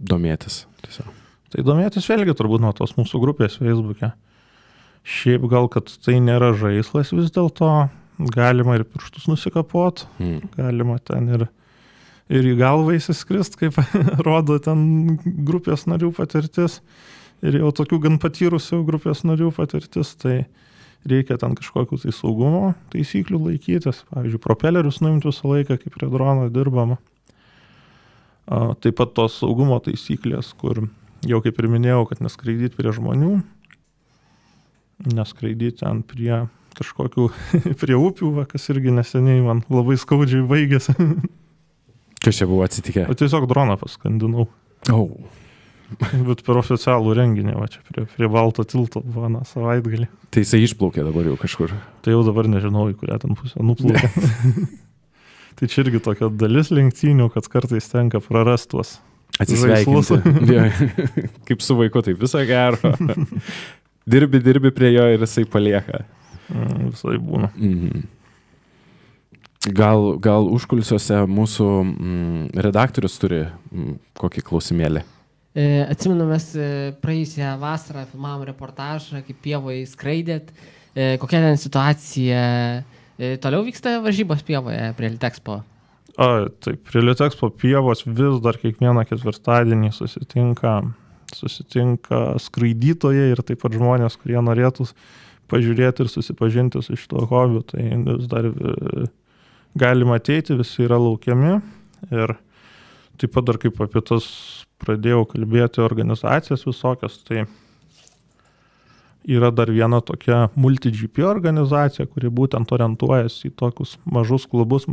domėtis? Tiesiog. Tai domėtis vėlgi turbūt nuo tos mūsų grupės Facebook'e. Šiaip gal, kad tai nėra žaislas vis dėlto, galima ir pirštus nusikapot, galima ten ir į galvą įsiskrist, kaip rodo ten grupės narių patirtis, ir jau tokių gan patyrusių grupės narių patirtis, tai reikia ten kažkokių tai saugumo taisyklių laikytis, pavyzdžiui, propelerius nuimti visą laiką, kaip prie drono dirbama. Taip pat tos saugumo taisyklės, kur jau kaip ir minėjau, kad neskraidyti prie žmonių, neskraidyti ten prie kažkokių, prie upių, kas irgi neseniai man labai skaudžiai baigėsi. Kas čia buvo atsitikę? O tiesiog droną paskandinau. Bet per oficialų renginį, va čia prie Balto tilto buvo savaitgalį. Tai jisai išplaukė dabar jau kažkur. Tai jau dabar nežinau, į kurią ten pusę nuplaukė. Tai čia irgi tokia dalis lenktynių, kad kartais tenka prarasti tuos atsisveikinti. Kaip su vaiku, tai viso gero. Dirbi prie jo ir jisai palieka. Visai būna. Gal užkulisiuose mūsų redaktorius turi kokį klausimėlį? Atsimenu, mes praėjusią vasarą filmavom reportažą, kaip pievoje skraidėt. Kokia ten situacija? Toliau vyksta varžybos pievoje prie Litexpo? Taip, prie Litexpo pievos vis dar kiekvieną ketvirtadienį susitinka skraidytojai ir taip pat žmonės, kurie norėtų pažiūrėti ir susipažinti su šito hobiu. Tai vis dar galima ateiti, visi yra laukiami. Ir taip pat dar kaip apie tas pradėjau kalbėti organizacijas visokias, tai yra dar viena tokia multi-GP organizacija, kuri būtent orientuojasi į tokius mažus klubus,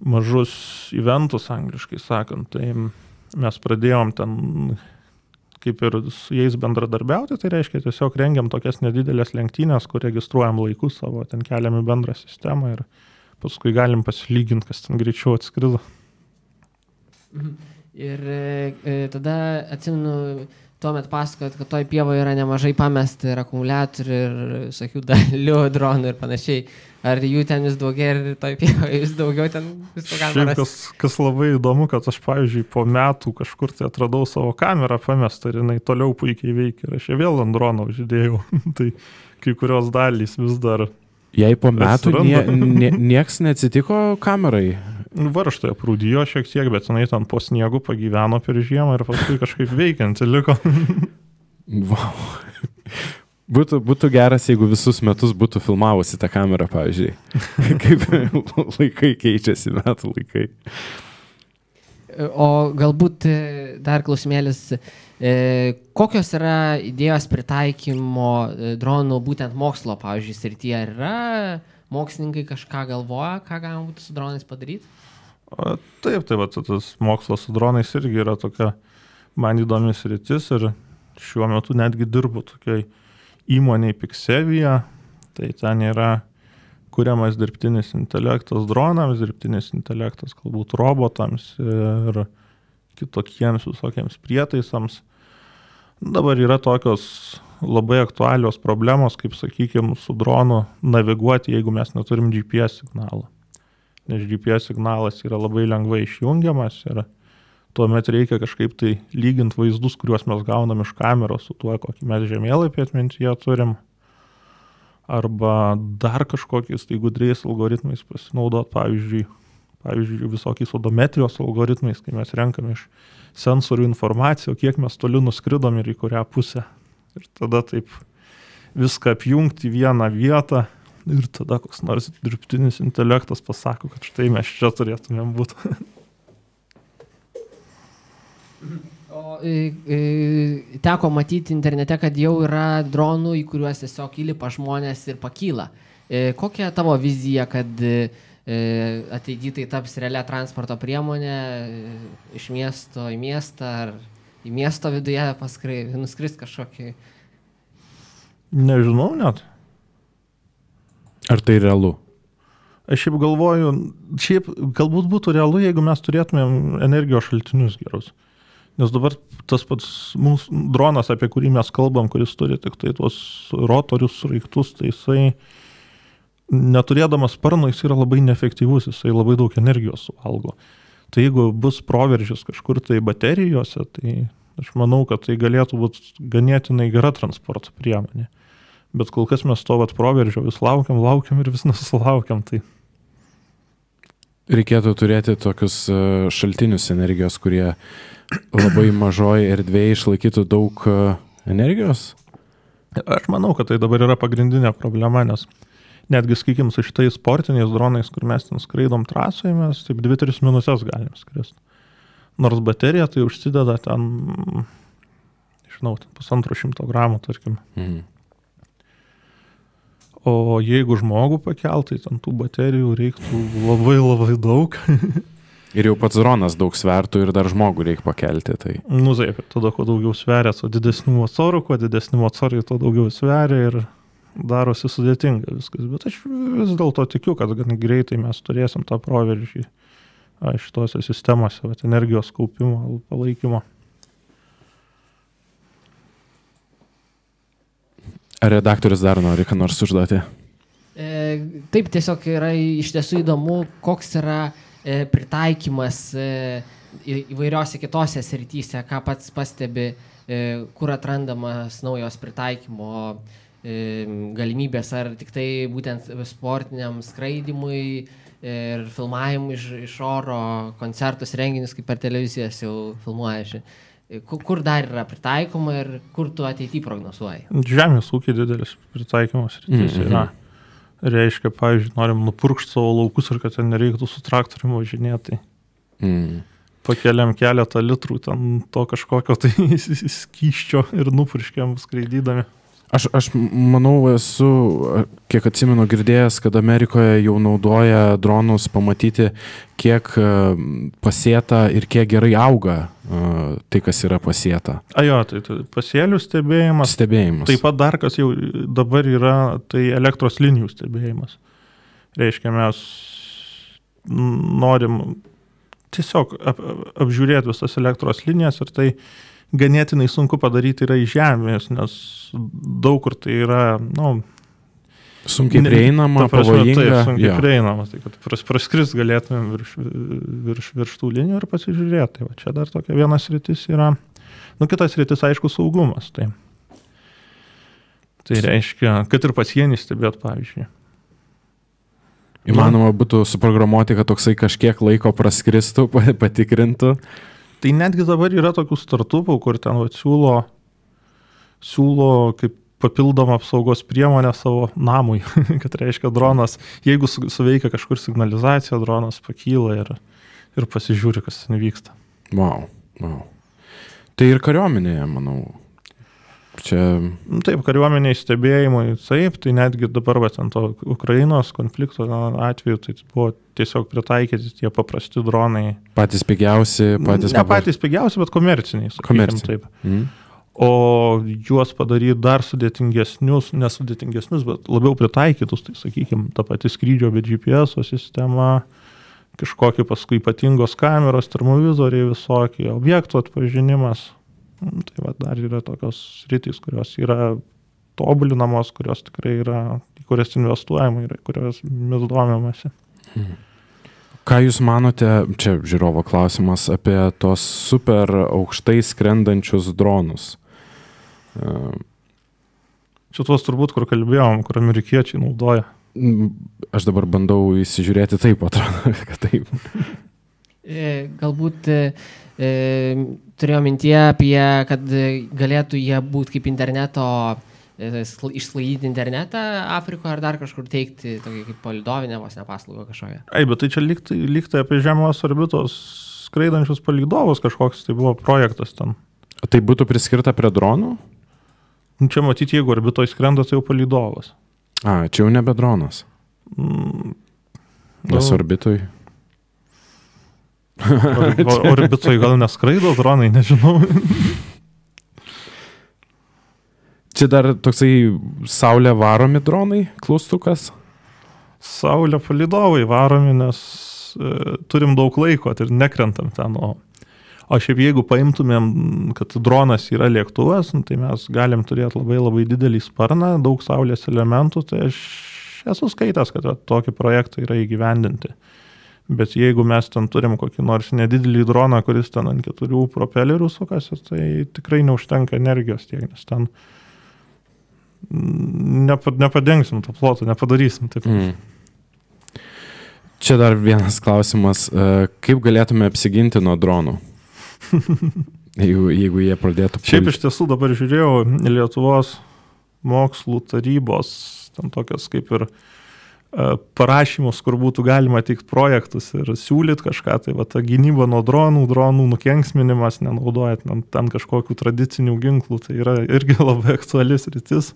mažus eventus, angliškai sakant. Tai mes pradėjom ten kaip ir su jais bendradarbiauti, tai reiškia tiesiog rengiam tokias nedidelės lenktynės, kur registruojam laikus savo, ten keliam į bendrą sistemą ir paskui galim pasilyginti, kas ten greičiau atskrido. Ir tada atsimenu, tuomet pasakojot, kad toj pievoje yra nemažai pamesta ir akumuliatorių ir visokių dalių, dronų ir panašiai. Ar jų ten vis daugiau ir toj pievoje vis daugiau ten visko galima rasti? Kas labai įdomu, kad aš, pavyzdžiui, po metų kažkur tai atradau savo kamerą pamestą ir jinai toliau puikiai veikia. Ir aš ją vėl ant drono uždėjau. Tai kai kurios dalys vis dar... Jei po metų nieks neatsitiko kamerai? Varžtai aprūdijo šiek tiek, bet jinai ten po sniegu pagyveno per žiemą ir paskui kažkaip veikianti liko. Wow. Būtų geras, jeigu visus metus būtų filmavusi tą kamerą, pavyzdžiui. Kaip laikai keičiasi, metų laikai. O galbūt dar klausimėlis, kokios yra idėjos pritaikymo dronų būtent mokslo, pavyzdžiui, srityje? Ar yra mokslininkai kažką galvoja, ką galima būtų su dronais padaryti? Taip, tas mokslas su dronais irgi yra tokia man įdomi sritis ir šiuo metu netgi dirbu tokiai įmoniai Pixevia, tai ten yra kuriamas dirbtinis intelektas dronams, dirbtinis intelektas galbūt robotams ir kitokiems visokiems prietaisams. Dabar yra tokios labai aktualios problemos, kaip sakykime, su dronu naviguoti, jeigu mes neturim GPS signalą. Nes GPS signalas yra labai lengvai išjungiamas ir tuomet reikia kažkaip tai lyginti vaizdus, kuriuos mes gaunam iš kameros su tuo, kokį mes žemėlapį atmintyje turim. Arba dar kažkokiais tai gudriais algoritmais pasinaudot, pavyzdžiui, visokiais odometrijos algoritmais, kai mes renkam iš sensorių informaciją, kiek mes toli nuskridom ir į kurią pusę. Ir tada taip viską apjungti į vieną vietą ir tada koks nors dirbtinis intelektas pasako, kad štai mes čia turėtumėm būti. O teko matyti internete, kad jau yra dronų, į kuriuos tiesiog įlipa žmonės ir pakyla. Kokia tavo vizija, kad ateityje tai taps realia transporto priemonė iš miesto į miestą ar į miesto viduje nuskris kažkokį? Nežinau net. Ar tai realu? Aš šiaip galvoju, galbūt būtų realu, jeigu mes turėtumėm energijos šaltinius gerus. Nes dabar tas pats mūsų dronas, apie kurį mes kalbam, kuris turi tik tai tuos rotorius, sraigtus, tai jisai neturėdamas sparno, jis yra labai neefektyvus, jisai labai daug energijos suvalgo. Tai jeigu bus proveržis kažkur tai baterijose, tai aš manau, kad tai galėtų būti ganėtinai gera transporto priemonė. Bet kol kas mes to proveržio vis laukiam ir vis nesulaukiam. Tai reikėtų turėti tokius šaltinius energijos, kurie labai mažoje erdvėje išlaikytų daug energijos? Aš manau, kad tai dabar yra pagrindinė problema, nes netgi, sakykim, su šitais sportiniais dronais, kur mes ten skraidom trasoje, mes taip 2-3 minutės galim skristi. Nors baterija tai užsideda ten, žinau, 150 gramų, tarkim. O jeigu žmogų pakeltai, ten tų baterijų reiktų labai labai daug. Ir jau pats dronas daug svertų ir dar žmogų reikia pakelti. Tai. Nu, taip, tada kuo daugiau sveria, tuo didesnių motorų, kuo didesnių motorų, tuo daugiau sveria ir darosi sudėtinga viskas. Bet aš vis dėlto tikiu, kad gan greitai mes turėsim tą proveržį šitose sistemose, energijos kaupimo, palaikymo. Ar redaktorius dar nori ką nors užduoti? Taip, tiesiog yra iš tiesų įdomu, koks yra pritaikymas įvairiose kitose srityse, ką pats pastebi, kur atrandamas naujos pritaikymo galimybės, ar tik tai būtent sportiniam skraidimui ir filmavimui iš oro, koncertus, renginius, kaip per televizijas jau filmuoja. Kur dar yra pritaikoma ir kur tu ateityje prognozuoji? Žemės ūkiai didelis pritaikymas rytis yra. Reiškia, pavyzdžiui, norim nupurkšti savo laukus ir kad ten nereiktų su traktoriumi važinėti. Pakeliam keletą litrų ten to kažkokio tai skysčio ir nupurškiam skraidydami. Aš manau, esu, kiek atsimenu, girdėjęs, kad Amerikoje jau naudoja dronus pamatyti, kiek pasėta ir kiek gerai auga tai, kas yra pasėta. Jo, tai pasėlių stebėjimas. Taip pat dar, kas jau dabar yra, tai elektros linijų stebėjimas. Reiškia, mes norim tiesiog apžiūrėti visas elektros linijas ir tai ganėtinai sunku padaryti yra iš žemės, nes daug kur tai yra, sunkiai prieinama, pavojinga. Taip, sunkiai prieinama, tai kad praskrist galėtumėm virš tų linijų ir pasižiūrėti. Tai va, čia dar tokia vienas sritis yra, kitas sritis, aišku, saugumas. Tai reiškia, kad ir pasienį stebėt, pavyzdžiui. Įmanoma būtų suprogramuoti, kad toksai kažkiek laiko praskristų, patikrintų. Tai netgi dabar yra tokių startupų, kur ten siūlo kaip papildomą apsaugos priemonę savo namui, kad reiškia dronas, jeigu suveikia kažkur signalizacija, dronas pakyla ir pasižiūri, kas ten vyksta. Wow. Tai ir kariuomenėje, manau. Taip, kariuomeniai stebėjimai, taip, tai netgi dabar ant to Ukrainos konflikto atveju tai buvo tiesiog pritaikyti tie paprasti dronai. Patys pigiausi, patys pigiausi, bet komerciniai. Taip. O juos padaryti dar nesudėtingesnius, bet labiau pritaikytus, tai sakykime, ta pati skrydžio be GPS sistema, kažkokie paskui ypatingos kameros, termovizoriai visokie, objektų atpažinimas. Tai va, dar yra tokios sritys, kurios yra tobulinamos, kurios tikrai yra, į kurias investuojama ir kurios mes domimasi. Ką Jūs manote, čia žiūrovo klausimas, apie tos super aukštai skrendančius dronus? Čia tuos turbūt, kur kalbėjom, kur amerikiečiai naudoja. Aš dabar bandau įsižiūrėti, taip atrodo, kad taip. Galbūt turėjau mintyje apie, kad galėtų jie būti kaip interneto, išsklaidyti internetą Afrikoje ar dar kažkur teikti, tokį kaip palidovinę vos nepaslaugą kažkokią. Bet tai čia lygtai apie žemos orbitos skraidančius palydovus kažkoks, tai buvo projektas ten. Tai būtų priskirta prie dronų? Čia matyti, jeigu orbitoje skrenda, tai jau palydovas. Čia jau nebe dronas. Nes orbitoj. Orbitoj gal neskraido dronai, nežinau. Čia dar toksai saulė varomi dronai, klaustukas? Saulė palydovai varomi, nes turim daug laiko ir nekrentam ten. O O šiaip jeigu paimtumėm, kad dronas yra lėktuvas, tai mes galim turėti labai labai didelį sparną, daug saulės elementų, tai aš esu skaitęs, kad tokį projektą yra įgyvendinti. Bet jeigu mes ten turim kokį nors nedidelį droną, kuris ten ant 4 propelerių sukasi, tai tikrai neužtenka energijos tiek, nes ten nepadengsim to ploto, nepadarysim taip. Čia dar vienas klausimas. Kaip galėtume apsiginti nuo dronų? jeigu jie pradėtų... Šiaip iš tiesų dabar žiūrėjau Lietuvos mokslų tarybos, ten tokias kaip ir parašymus, kur būtų galima teikti projektus ir siūlyti kažką, tai va ta gynyba nuo dronų nukenksminimas, nenaudojant ten kažkokių tradicinių ginklų, tai yra irgi labai aktualis rytis.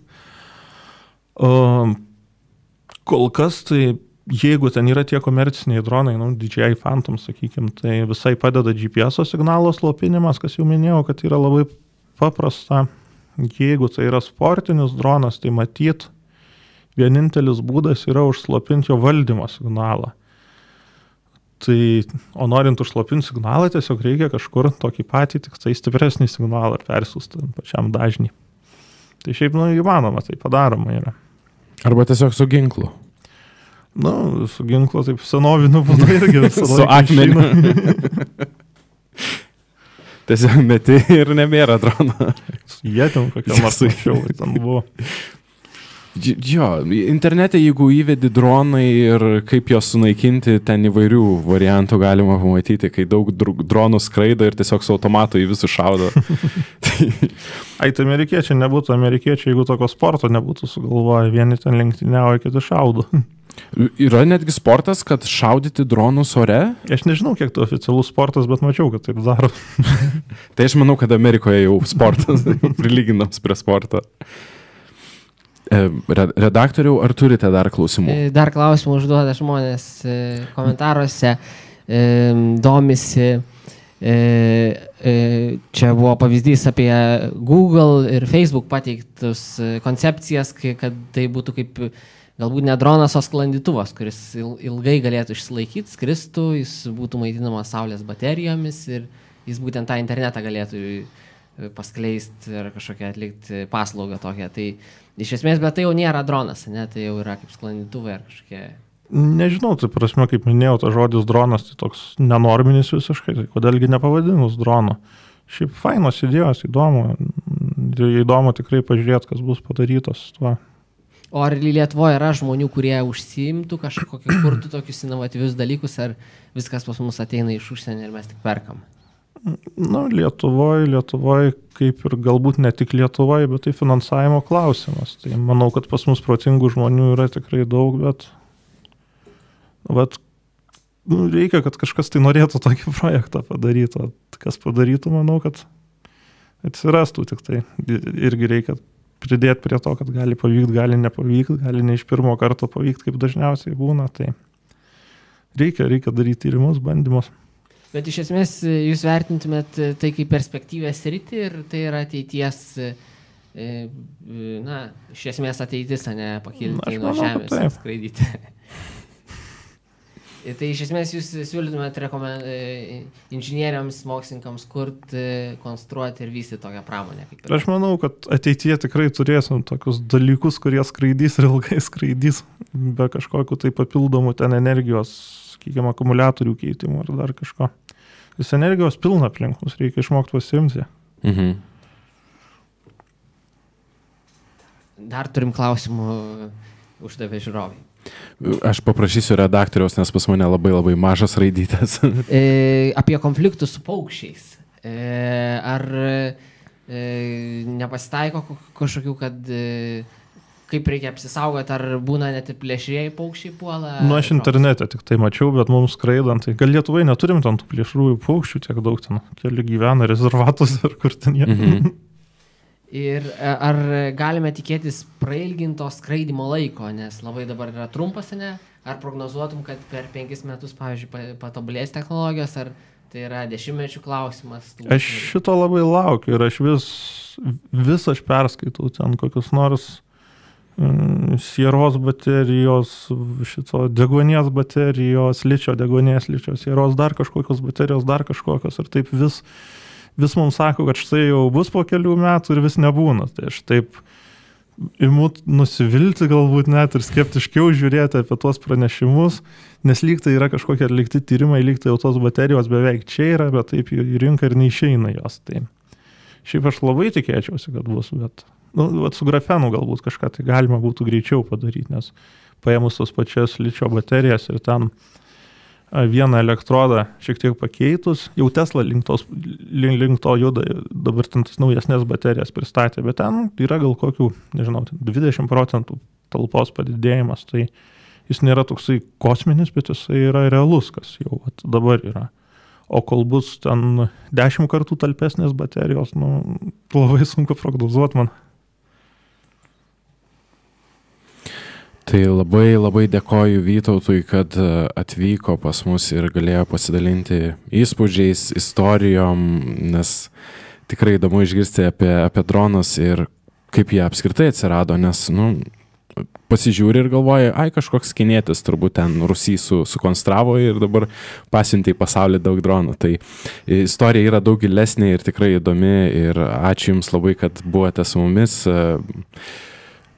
Kol kas tai jeigu ten yra tie komerciniai dronai, DJI Phantom, sakykime, tai visai padeda GPS signalo slopinimas, kas jau minėjau, kad yra labai paprasta. Jeigu tai yra sportinis dronas, tai matyt, vienintelis būdas yra užslopinti jo valdymo signalą. Tai, o norint užslopinti signalą, tiesiog reikia kažkur tokį patį, tik tai stipresnį signalą persiųsti pačiam dažnį. Tai šiaip, įmanoma, tai padaroma yra. Arba tiesiog su ginklu. Su ginklo taip senoviniu būdu irgi visą su akmeniu. Tiesiog meti ir nebėra drono. Jie ten kokia nors anksčiau ten buvo. Jo, internete jeigu įvedi dronai ir kaip juos sunaikinti, ten įvairių variantų galima pamatyti, kai daug dronų skraido ir tiesiog su automatu į visus šaudo. Tai amerikiečiai nebūtų amerikiečiai, jeigu tokio sporto nebūtų sugalvoję, vieni ten lenktyniauja, kiti šaudo. Yra netgi sportas, kad šaudyti dronus ore? Aš nežinau, kiek tai oficialus sportas, bet mačiau, kad taip daro. Tai aš manau, kad Amerikoje jau sportas prilyginams prie sporto. Redaktoriau, ar turite dar klausimų? Dar klausimų užduoda žmonės komentaruose, domisi. Čia buvo pavyzdys apie Google ir Facebook pateiktus koncepcijas, kad tai būtų kaip galbūt ne dronas, o sklandytuvas, kuris ilgai galėtų išsilaikyti, skristų, jis būtų maitinamas saulės baterijomis ir jis būtent tą internetą galėtų paskleisti ir kažkokią atlikti paslaugą tokią. Tai iš esmės, bet tai jau nėra dronas, ne? Tai jau yra kaip sklandytuvai ar kažkokie... Nežinau, tai prasme, kaip minėjau, tas žodis dronas, tai toks nenorminis visiškai, tai kodėlgi nepavadinus drono. Šiaip fainos idėjos, įdomu tikrai pažiūrėti, kas bus padarytas tuo. O ar Lietuvoje yra žmonių, kurie užsiimtų kažkokį, kurtų tokius inovatyvius dalykus, ar viskas pas mus ateina iš užsienio ir mes tik perkam? Lietuvoje, kaip ir galbūt ne tik Lietuvoje, bet tai finansavimo klausimas. Tai manau, kad pas mus protingų žmonių yra tikrai daug, bet reikia, kad kažkas tai norėtų tokį projektą padaryti. O kas padarytų, manau, kad atsirastų tik tai. Irgi reikia pridėti prie to, kad gali pavykti, gali nepavykti, gali ne iš pirmo karto pavykti, kaip dažniausiai būna. Tai reikia daryti tyrimus, bandymus. Bet iš esmės jūs vertintumėt tai kaip perspektyvę sritį ir tai yra ateities, iš esmės ateitis, ne pakilti nuo žemės ir skraidyti. Tai iš esmės jūs siūlytumėt inžinieriams, mokslininkams kurti, konstruoti ir vystyti tokią pramonę. Aš manau, kad ateityje tikrai turėsim tokius dalykus, kurie skraidys ir ilgai skraidys, be kažkokių tai papildomų ten energijos, sakykime, akumuliatorių keitimų ar dar kažko. Vis energijos pilna aplink, mums reikia išmokti pasiimti. Dar turim klausimų, uždavė žiūrovai. Aš paprašysiu redaktoriaus, nes pas mane labai labai mažas raidytas. Apie konfliktus su paukščiais. Ar nepasitaiko kažkokių, kad kaip reikia apsisaugoti, ar būna net ir plėšrieji paukščiai puola? Aš internete tik tai mačiau, bet mums skraidant, tai gal Lietuvai neturim ten tų plėšrųjų paukščių tiek daug ten, keli gyvena rezervatus ar kur ten jie. Ir ar galime tikėtis prailginto skraidimo laiko, nes labai dabar yra trumpas, ne? Ar prognozuotum, kad per 5 metus, pavyzdžiui, patobulės technologijos, ar tai yra 10-mečių klausimas? Aš šito labai laukiu ir aš vis aš perskaitau ten kokius nors sieros baterijos, šito degonės baterijos, ličio degonės, ličio sieros, dar kažkokios baterijos, dar kažkokios ir taip vis mums sako, kad štai jau bus po kelių metų ir vis nebūna. Tai aš taip imu nusivilti galbūt net ir skeptiškiau žiūrėti apie tuos pranešimus, nes lyg tai yra kažkokie atlikti tyrimai, lyg tai jau tos baterijos beveik čia yra, bet taip į rinką ir neišeina jos. Tai šiaip aš labai tikėčiausi, kad bus, bet su grafenu galbūt kažką tai galima būtų greičiau padaryti, nes paėmus tos pačias ličio baterijas ir ten vieną elektrodą šiek tiek pakeitus, jau Tesla link to juda, dabar ten tas naujesnės baterijas pristatė, bet ten yra gal kokių, nežinau, 20% talpos padidėjimas, tai jis nėra toksai kosminis, bet jisai yra realus, kas jau dabar yra. O kol bus ten 10 kartų talpesnės baterijos, labai sunku prognozuoti man. Tai labai dėkoju Vytautui, kad atvyko pas mus ir galėjo pasidalinti įspūdžiais, istorijom, nes tikrai įdomu išgirsti apie dronus ir kaip jie apskritai atsirado, nes, pasižiūri ir galvoja, kažkoks kinietis turbūt ten Rusijai sukonstravo ir dabar pasiuntė į pasaulį daug dronų. Tai istorija yra daug gilesnė ir tikrai įdomi ir ačiū Jums labai, kad buvote su mumis.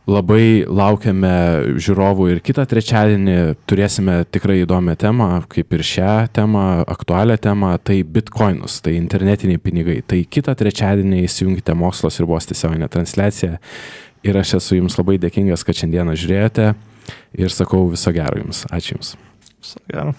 Labai laukiame žiūrovų ir kitą trečiadienį turėsime tikrai įdomią temą, kaip ir šią temą, aktualią temą, tai bitcoinus, tai internetiniai pinigai. Tai kitą trečiadienį įsijungite Mokslo sriubos tiesioginę transliaciją ir aš esu Jums labai dėkingas, kad šiandieną žiūrėjote ir sakau viso gero Jums. Ačiū Jums. Viso gero.